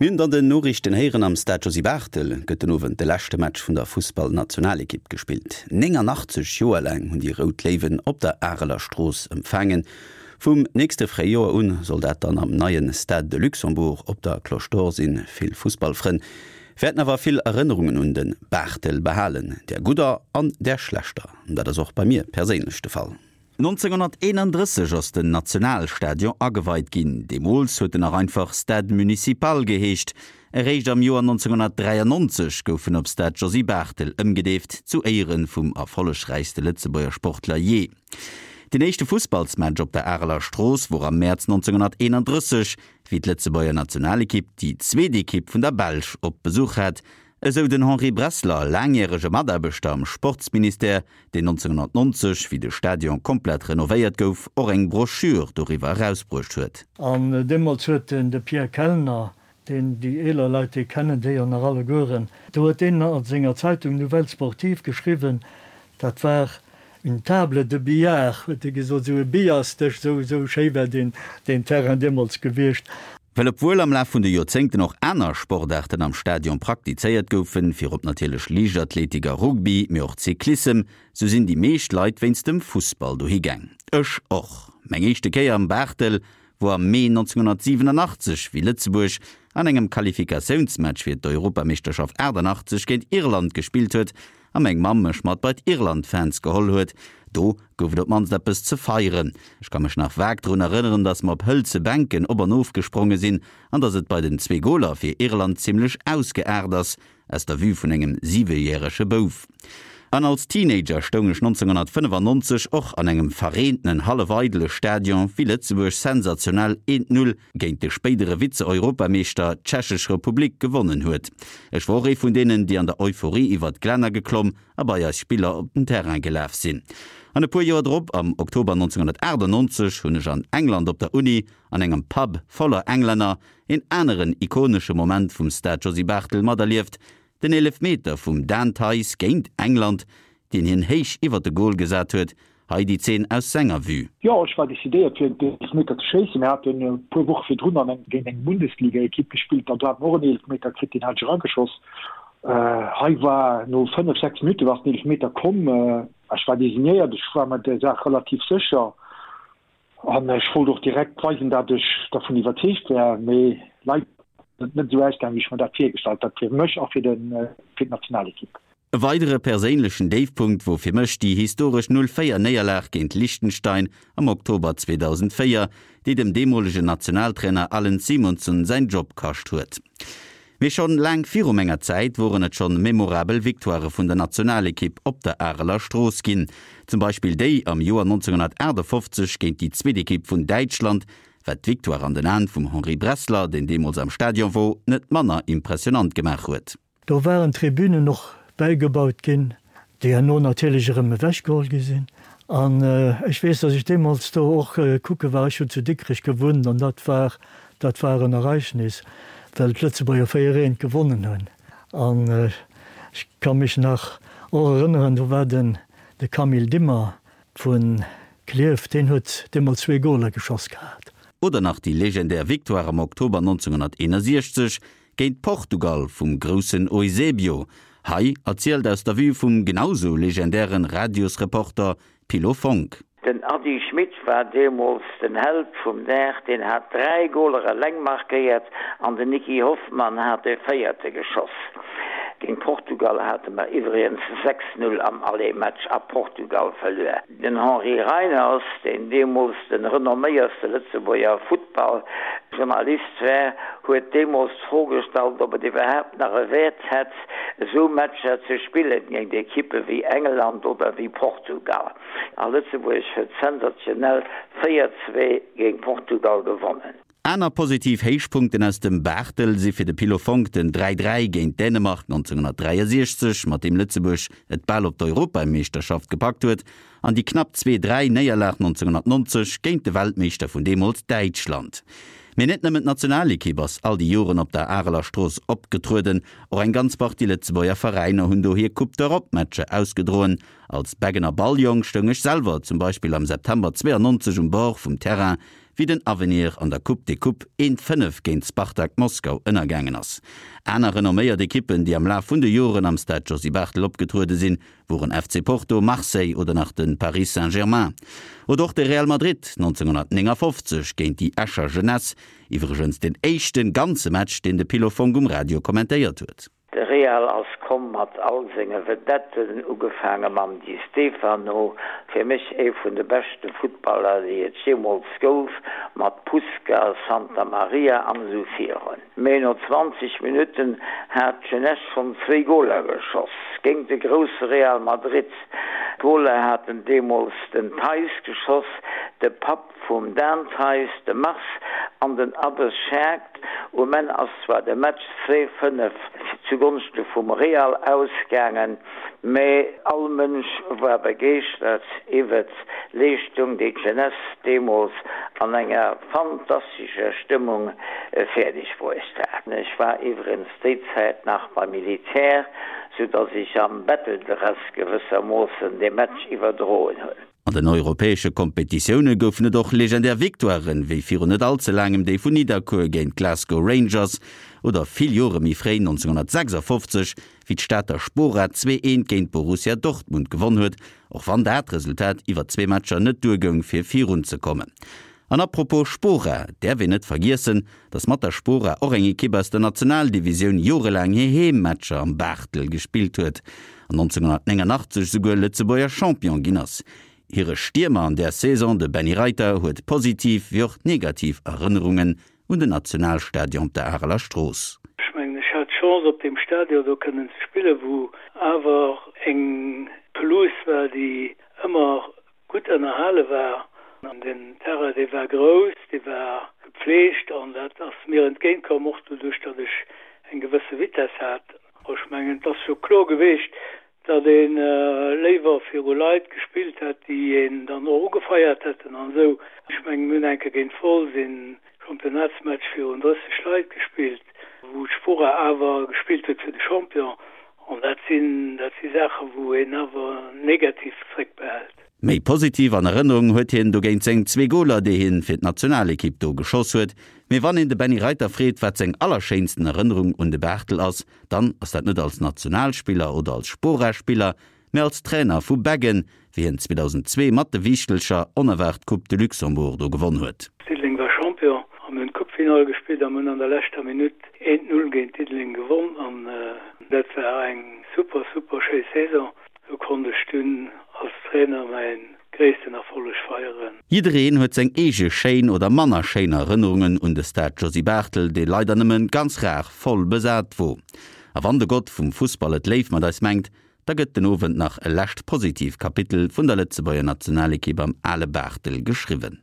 Mir hunn et an den Noriichten héieren, Am Stade Josy Barthel gëtt den Owend de leschte Match vun der Fussballnationalekipp gespillt. 89 Joer laang hunn déi Rout Léiwen op der Areler Strooss empfaangen. Vum nächste Fréijoer un soll dat dann am neie Stade de Luxembourg op der Cloche d'Or sinn. Vill Fussballfrënn wäerten awer vill Erënnerungen un de Barthel behalen, där gudder an där schlechter. Dat ass och bei mir perséinlech de Fall. 1931 ass den Nationalstadion ageweit ginn. Deemools huet en nach einfach Stade Municipal geheescht. Eréischt am Joer 1993 gouf en op Stade Josy Barthel ëmgedeeft, zu Éiere vum erfollegräichste Lëtzebuerger Sportler jee. Den éischte Fussballsmatch op der Areler Strooss wor am Mäerz 1931, wéi d'Lëtzebuerger Nationalekipp déi zweet Ekipp vun der Belsch op Besuch hat, Esou den Henri Bressler, laangjärege Mataarbechter am Sportsministère, deen 1990, wéi de Stadion komplett renovéiert gouf, och eng Broschür doriwwer erausbruecht huet. An deemools huet den de Pierre Kellner, deen déi eeler Leit, déi kennen dee jo nach allegueren, do huet deen a senger Zeitung Nouvelles Sportives geschriwwen, dat war une table de billard, huet e gesot, esou e Billardsdësch, esou, esou schéi war deen, deen Terrain deemools gewiescht. Well obwuel am Laf vun de Joerzéngten och aner Sportaarten am Stadion praktizéiert goufen, virop natierlech Liichtathletik a Rugby, mee och Cyclissem, sou sinn déi meescht Leit wéinst dem Fussball dohi gaang. Ech och. Meng éischte Kéier am Barthel wor am Mee 1987, wéi Lëtzebuerg an engem Qualifikatiounsmatch fir d'Europameeschterschaft 88 géint Irland gespillt huet a meng Mamm mech mat bei d'Irland-Fans geholl huet. Do gouf et op d'mannst eppes ze feieren. Ech ka mech nach vag drun erënneren, dass mer op hëlze Bänken op an of gespronge sinn an dass et bei den zwee Goler fir Irland zimlech ausgeaart ass, aus der Vue vun engem siwejärege Bouf. An als Teenager stoung ech 1995 och an engem verreentenen, hallef eidele Stadion, wéi Lëtzebuerg sensationell 1, 0 géint de spéidere Vize-Europameeschter, d'Tschechesch Republik, gewonnen huet. Ech wor och ee vun deenen, déi an der Euphorie iwwert d'Glänner geklomm a bei eis Spiller op den Terrain gelaf sinn. An e puer Joer drop, am Oktober 1998, hunn ech an England op der Uni, an engem Pub voller Englänner, een aneren ikonesche Moment vum Stade Josy Barthel materlieft, den Eelefmeter vum Dan Theis géint England, deen hien héich iwwert de Gol gesat huet, Hei déi Zeen aus senger Vue. Jo, ech war decidéiert fir den Eelefmeter ze schéissen. Mir haten e puer Woche virdrun an eng géint eng Bundesligaekipp gespillt an do hat mer och en Eelefmeter kritt, deen hat ech erageschoss. Hei war no 5, 6 Minutte war den Eelefmeter komm. Ech war designéiert, ech war mer der Saach relativ sécher an ech wollt och direkt weisen, dat ech dervun iwwerzeegt war. Mee leider ass et net esou ausgaangen, wéi ech mer dat virgestallt hat, fir mech a fir d'Nationalekipp. E weidere perséinlechen Déifpunkt wor fir mech déi historesch 0, 4 Néierlag géint Liechtenstein am Oktober 2004, déi dem deemolegen Nationaltrainer Allan Simonsen säin Job kascht huet. Mee schonn laang viru menger Zäit woren et schonn memorabel Victoirë vun der Nationalekipp op der Areler Strooss ginn. Zum Beispill déi am Joer 1958 géint déi zweet Ekipp vun Däitschland, wat d'Victoire an den Aen vum Henri Bressler, deen deemools am Stadion wor, net manner impressionant gemaach huet. Do waren Tribünen och bäigebaut ginn, déi herno natierlech erëm ewechgeholl gi sinn. An ech weess, datt ech deemools do och kucke war, ech hunn zu Dikrech gewunnt, an dat war, dat war en Ereignis, well d'Lëtzebuerger 4, eent gewonnen hunn. An ech ka mech nach och erënneren, do war den, de Camille Dimmer vu Klierf, deen huet deemools zwee Goler geschoss gehat. Oder nach déi legendär Victoire am Oktober 1961 Géint Portugal vum groussen Eusebio, hei erzielt aus der Vue vum genausou legendären Radiosreporter Pilo Fonck. Den Ady Schmit war deemools den Held vum Dag, deen hat 3 Goler eleng markéiert an den Nicky Hoffmann hat de véierte geschoss. Géint Portugal hate mer iwwregens 6, 0 am Aller-Match a Portugal verluer. Den Henri Reiners, deen deemools de renomméierste Lëtzebuerger Futtballjournalist war, huet deemools d'Fro gestallt, ob et iwwerhaapt nach e Wäert hätt, esou Matcher ze spillen géint Ekippe wéi England oder wéi Portugal. A Lëtzebuerg huet sensationell 4, 2 géint Portugal gewonnen. Aner positiv Héichpunkten aus dem Barthel si fir de Pilo Fonck den 3, 3 géint Dänemark 1963, mat deem Lëtzebuerg et bal op d'Europameeschterschaft gepackt huet, an déi knapp 2, 3 Néierlag 1990 géint de Weltmeeschter vun deemools, Däitschland. Mee net nëmmen d'Nationalekipp ass all déi Joren op der Areler Strooss opgetrueden, och eng ganz Partie Lëtzebuerger Veräiner hunn do hir Coupe d'Europe-Matcher ausgedroen. Als Beggener Balljong stoung ech selwer zum Beispill am September 92 um Bord vum Terrain. wéi den Avenir an der Coupe des Coupes 1, 5 géint Spartak Moskau ënnergaangen ass. Aner renomméiert Ekippen, déi am Laf vun de Joren am Stade Josy Barthel opgetruede sinn, woren FC Porto, Marseille oder nach de Paris Saint-Germain. Oder och de Real Madrid 1959 géint déi Escher Jeunesse, iwwregens den éischte ganze Match, deen de Pilo Fonck um Radio kommentéiert huet. De Real ass komm mat all senge Vedetten, ugefaange mam Di Stefano, fir mech ee vun de beschte Futtballer déi et jeemools gouf, mat Puskas, Santamaria an esou virun. Mee no 20 Minutten hat d'Jeunesse schonn zwéi Goler geschoss géint de grousse Real Madrid. D'Goler haten deemools den Theis geschoss, de Papp Vum Dan Theis, de Mars an den Abbes Scherk. Um Enn ass zwar de Match 2, 5 zugonschte vum Real ausgaangen, mä all Mënsch war begeeschtert iwwert d'Leeschtung, déi d'Jeunesse deemools an enger fantastescher Stëmmung fäerdeg bruecht hat. Ech war iwwregens déi Zäit nach beim Militär, sou dass ech am Betteldress gewëssermoossen dee Match iwwerdroen hunn. An den europäesche Kompetitioune goufen et och legendär Victoiren, wéi virun net all ze laangem déi vun Nidderkuer géint d'Glasgow Rangers oder vill Jore méi fréi 1956, wéi d'Stater Spora 2, 1 géint Borussia Dortmund gewonn huet, och wann dat Resultat iwwer zwee Matcher net duergoung fir virunzekommen. An apropos Spora, et däerf een net vergiessen, datt mat der Spora och eng Ekipp aus der Nationaldivisioun jorelaang hir Heemmatcher am Barthel gespillt huet an 1989 souguer Lëtzebuerger Champion ginn ass. Hire Stiermer an där Saison, de Benny Reiter, huet positiv wéi och negativ Erënnerungen un den Nationalstadion op der Areler Strooss. Ech mengen, ech hat d'Chance op deem Stadion do kënnen ze spillen, wou awer eng Pelouse war, déi ëmmer gutt ënnerhale war. An den Terrain, dee war grouss, dee war gepflegt an dat ass mir entgéint komm, och doduerch, datt ech eng gewësse Vitess hat. Ech mengen, et ass jo kloer geweecht, datt ee léiwer viru Leit gespillt hätt, déi een dann och ugefeiert hätten an esou. Ech mengen, mir hunn eng Kéier géint Wolz een Championnatsmatch virun 30 Leit gespillt, wou d'Spora awer gespillt huet fir de Champion. An dat sinn, dat si Saachen, wou een awer negativ zréckbehält. Méi positiv an Erënnerung huet hien dogéint seng zwee Goler, déi hien fir d'Nationalekipp do geschoss huet. Mee wann een de Benny Reiter freet, wat seng allerschéinsten Erënnerung un de Barthel ass, dann ass dat net als Nationalspiller oder als Spora-Spiller, mee als Trainer vu Beggen, wéi hien 2002 mat de Wiichtelcher onerwaart d'Coupe de Luxembourg do gewonn huet. Diddeleng war Champion a mir hunn d'Coupefinall gespillt a mir hunn an der leschter Minutt 1, 0 géint Diddeleng gewonn an dat war eng super, super schéi Saison. Do konnt ech dunn als Trainer mäin gréissten Erfolleg feieren. Jiddereen huet seng eege schéin oder manner schéin Erënnerungen un de Stade Josy Barthel, dee leider nëmmen ganz rar voll besat wor. A wann de Gott vum Fussball et léif mat eis mengt, Da gëtt den Owend nach e lescht positiv Kapitel vun der Lëtzebuerger Nationalekipp am ale Barthel geschriwwen.